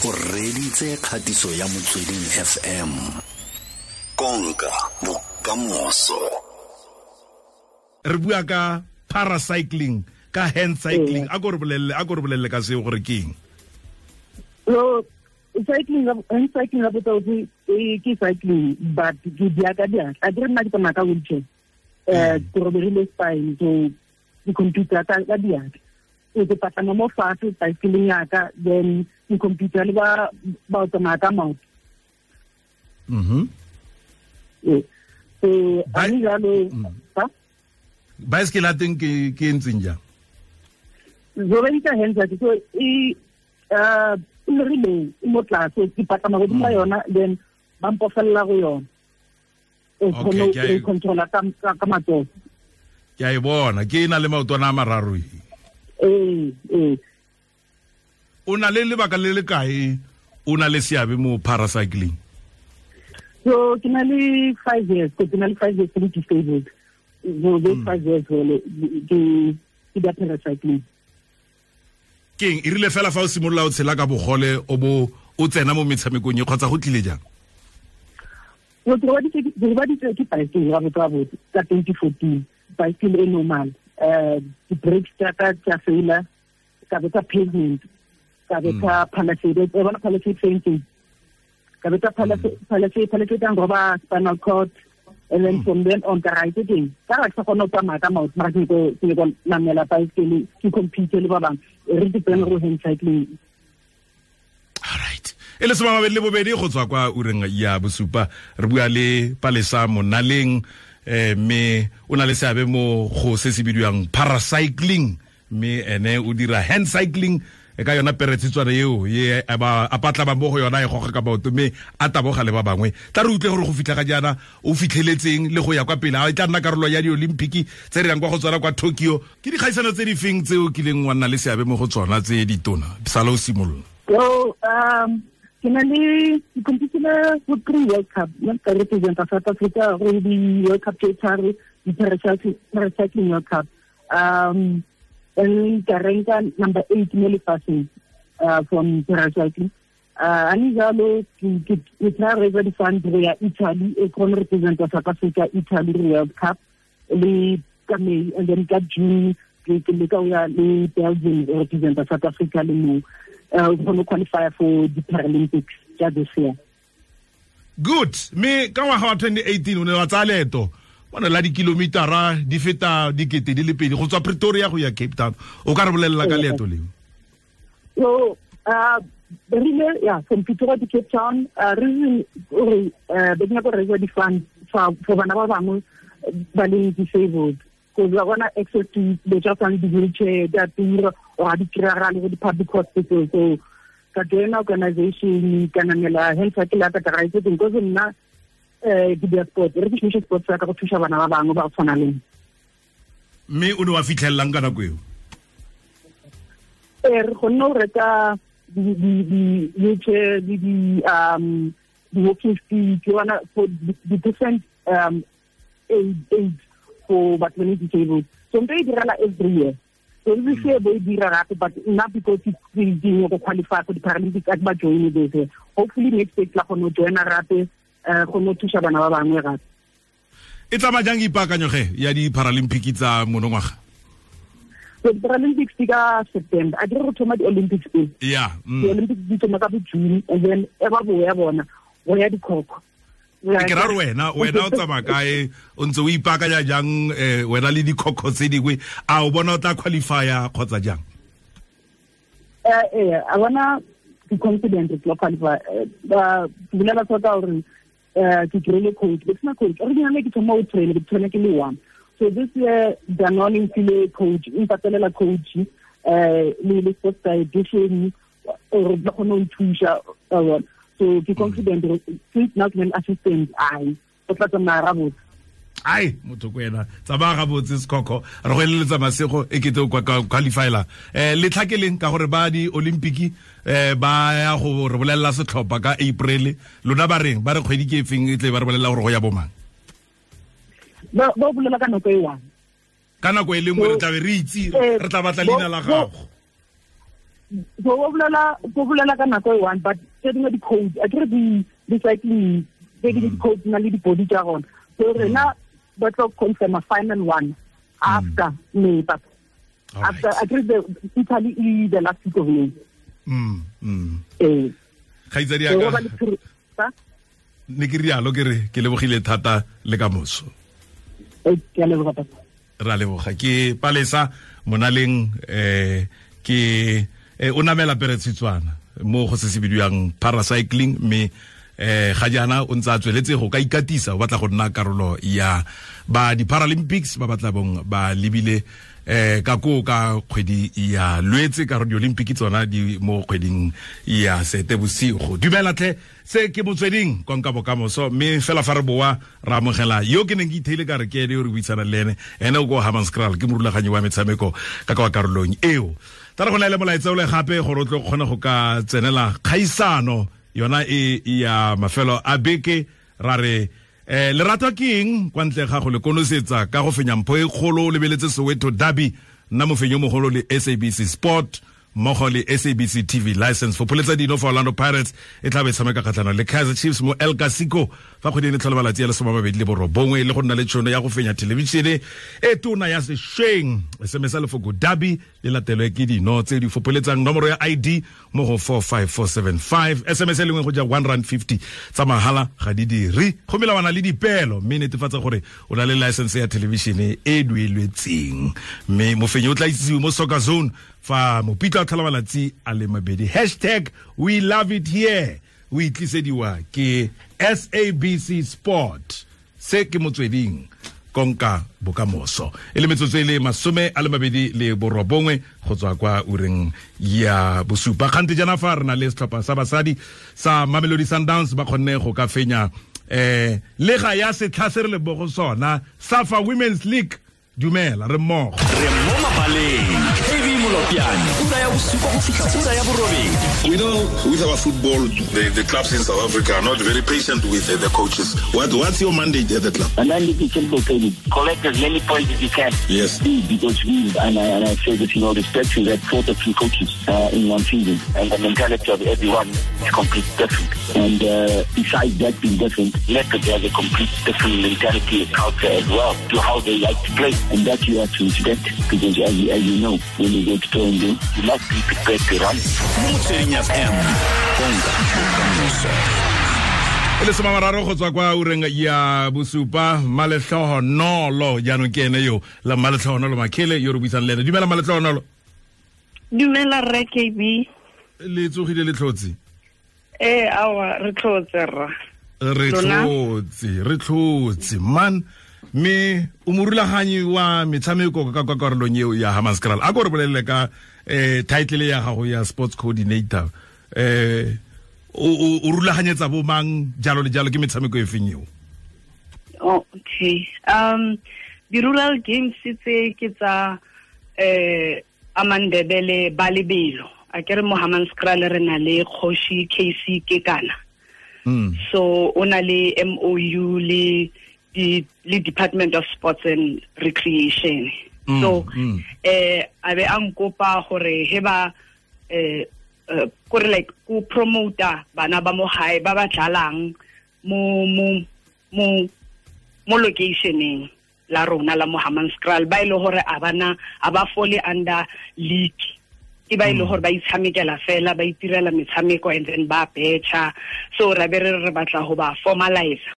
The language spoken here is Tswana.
O reditse kgatiso ya Motsweding FM. Konka bokamoso. Re bua ka paracycling, ka hand cycling. A ko re bolelle, a ko re bolelle ka seo gore ke eng. So cycling, hand cycling la botsa ke cycling, but ke dia ka dia. A dire nna ke tsamaya ka wheelchair. Ke robegile spine, so ke computer ka diatla. So ke patlama mo fatshe bicycle ya ka, then ke computer le ba ba tsamaya ka maoto. So a ni jalo ha bicycle a teng ke ntseng jang? Zo ba hands, so e rile mo tlase, ke patlama godimo ga yona, then ba mpofella go yona. O kgone go controla ka matsogo. Ke a e bona, ke e na le maotwana a mararo e. Ee. O na le lebaka le le kae o na le seabe mo paracycling? So ke na le 5 years, ke na le 5 years ke disabled. So those 5 years wele ke da paracycling. Keng e rile fela fa o simolola o tshela ka bogole o bo o tsena mo metshamekong e, kgotsa go tlile jang? So ke robaditswe ke bicycle ga botsa botse ka 2014, bicycle e normal. Di-brakes tsa ka tsa faila, ka betsa pavement, ka betsa palisade, e bona palisade fencing, ka betsa palisade, palisade ya roba spinal cord, and then from then on ka ra itse teng ka ra ke sa kgone go tsamaya ka maoto, mara ke ko namela bicycle, ke compete le ba bangwe, re depend go hand cycling. Alright, e le 22 go tswa kwa ureng ya bosupa, re bua le Palesa Monaleng, mme o na le seabe mo go se se bidiwang paracycling, mme ene o dira hand cycling e ka yona peretshitswana eo ye a patla mo go yona, e goga ka maoto, mme a taboga le ba bangwe. Tla re utlwe gore go fitlha ga jaana o fitlheletseng le go ya kwa pele, a e tla nna karolo ya di-Olympic tse re yang kwa go tsona kwa Tokyo. Ke dikgaisano tse di feng tse o kileng wa nna le seabe mo go tsona tse ditona sala o simolola? So ke na le ke competile go three World Cup, nna ka representa South Africa go di-World Cup tse tharo, di-paracycling World Cup, and ka ranka number 8 mo lefatsheng from paracycling. Ani jalo ke try raise di-fund go ya Italy, e kgone representa South Africa Italy World Cup le ka May, and then ka June ke leka go ya le Belgium, representa South Africa le mo kgone qualify for the Paralympics tsa this year. Good. Mme ka ngwaga wa 2018 o ne wa tsaya leeto bona la dikilomitara di feta 2000 go tswa Pretoria go ya Cape Town. O ka re bolelela ka leeto leo? So rile yeah, from Pretoria to Cape Town, reason gore be ke nyaka go raise di-fund for bana ba bangwe ba leng disabled, because ba bona access to dilo tsa tshwana di-wheelchair di a tura or ga di kry-agale go di-public hospital. So ka joina organization, ka namela hand cycle ya ka, ka raise teng, because nna ke dira sport, re ke šomiše sport sa ka go thusa bana ba bangwe ba go tshwana le nna. Mme o ne wa fitlhelelang ka nako eo? Ee, re kgonne go reka di-wheelchair le di-walking stick yona for the different aids for batho ba le disabled. So nto e direla every year, so this year bo e dira gape, but nna because ke go qualify for the Paralympics, a ke ba join this year. Hopefully next year tla kgone go joina gape, kgone go thusa bana ba bangwe gape. E tsamaya jang ipaakanyo ge ya di-Paralympic tsa monongwaga? So di-Paralympics di ka September. A dire go thoma di-Olympics pele. Di-Olympics di thoma ka bo June, and then e ba boya bona go ya dikhokho. Ke ra re wena o tsamaya kae, o ntse o ipaakanya jang, wena le dikhokho tse dingwe? A o bona o tla qualifya kgotsa jang? Eh, a bona ke confident ke tla qualify. Ba bolela tota gore ke kry-ile coach, ke sena coach originally, ke thoma o train, ke train ke le one. So this year Danone mfile coach, e mpatelela coach le sports dietitian gore ba kgone go nthusa. So ke confident since now ke ne assistant, ai o tla tsamaya gabotse. Ai, motho ko ena, tsamaya gabotse sekhokho, re go eleletsa masego, e kete o qualifyla letlha ke leng, ka gore ba di-Olympic ba ya go re bolelela setlhopha ka April. Lona ba reng, ba re kgwedi ke efeng e tle ba re bolelela gore go ya bomang? Ba bolela ka nako e one. Ka nako e le nngwe re tlabe re itse, re tla batla leina la gago. So o bolela ka nako e one, but tse dingwe di-code a kere di-cycling tse dingwe di-code na le di-body tsa gona. So rena ba tlo confirm a final one after May, but after I think the Italy is the last week of May. Kgaitsadi ya ka ne ke rialo ke re ke lebogile thata le ka moso. Ke a leboga papa. Ra leboga ke Palesa Monaleng ke o namela peretshitswana mo go se se bidiwang paracycling mme ga jaana o ntse a tsweletse go ka ikatisa o batla go nna karolo ya ba di Paralympics ba batla bong ba lebile ka ko ka kgwedi ya Lwetse ka di Olympic tsona di mo kgweding ya Seetebosigo. Dumela tlhe se ke Motsweding konka bokamoso mme fela fa re boa ra amogela yo ke neng ke itheile ka re ke ene yo re buisana le ene ene o ko Hammanskraal ke morulaganyi wa metshameko ka kwa karolong eo. Tla re go laele molaetsa o le gape gore o tlo kgone go ka tsenela kgaisano yona e ya mafelo a beke ra re lerato ke eng kwa ntle ga go le konosetsa ka go fenya mpho e kgolo o lebeletse Soweto Derby nna mofenyo mogolo le SABC Sport mmogo le SABC TV license for pholetsa dino for Orlando Pirates e tla be tshameka kgatlhanong le Kaizer Chiefs mo El Clasico fa kgwedi e tlhola malatsi a le 29 le go nna le tšhono ya go fenya thelebišene e tona ya sešweng. SMS lefoko Derby le latelwe ke dino tse di fopholetsang nomoro ya ID mo go 45475. SMS e lengwe go ja R1.50 tsa mahala ga di dire go melawana le dipeelo mme netefatsa gore o na le license ya thelebišene e dueletseng mme mofenyi o tla itsiwe mo Soccer Zone fa mopitla o tlhola malatsi a le mabedi. Hashtag we love it here o itlisediwa ke SABC Sport. Se ke Motsweding konka bokamoso e le metsotso e le 29 go tswa kwa ureng ya bosupa. Kgante jaana fa re na le setlhopha sa basadi sa Mamelodi Sundowns ba kgonne go ka fenya lega ya setlha se re le bo go sona Safa Women's League. Dumela re mmogo re mo mabaleng KB Molopjane ura ya bosupa go fitlha ura ya borobedi. We know with our football the clubs in South Africa are not very patient with the coaches. What's your mandate at the club? My mandate is simple, KB. Collect as many points as you can. Yes. Because we, and I say this in all respect, we had 4 different coaches in one season, and the mentality of everyone is completely different. And besides that being different, Leopards has a complete different mentality and culture as well to how they like to play. And that you have to respect, because as you know, when you go to play and do, you must be prepared to run. Motsweding FM, konka bokamoso. E le 30 go tswa kwa ureng ya bosupa. Malehlohonolo jaanong ke ene yo la Malehlohonolo Makhele yo re buisang le ene. Dumela Malehlohonolo. Dumela rre KB. Le tsogile le tlhotse? Awa re tlhotse rra. Re tlhotse man. Mme o morulaganyi wa metshameko ka kwa karolong eo ya Hammanskraal. A ko re bolelele ka title ya gago ya sports coordinator. O rulaganyetsa bo mang jalo le jalo ke metshameko e feng eo? Oh, okay. Di-rural games tse ke tsa Amandebele ba lebelo. A ke re mo Hammanskraal re na le Kgoshi KC Kekana. So o na le MOU le Department of Sports and Recreation. So a be a nkopa gore he ba kore like ku promoter bana ba mo hae ba ba dlalang mo mo mo mo locationeng la rona la mo Hammanskraal ba ile hore a bana a ba fole under league ke ba ile hore ba itshamekela fela ba itirela metshameko and then ba betcha. So ra be re batla ho ba formalize.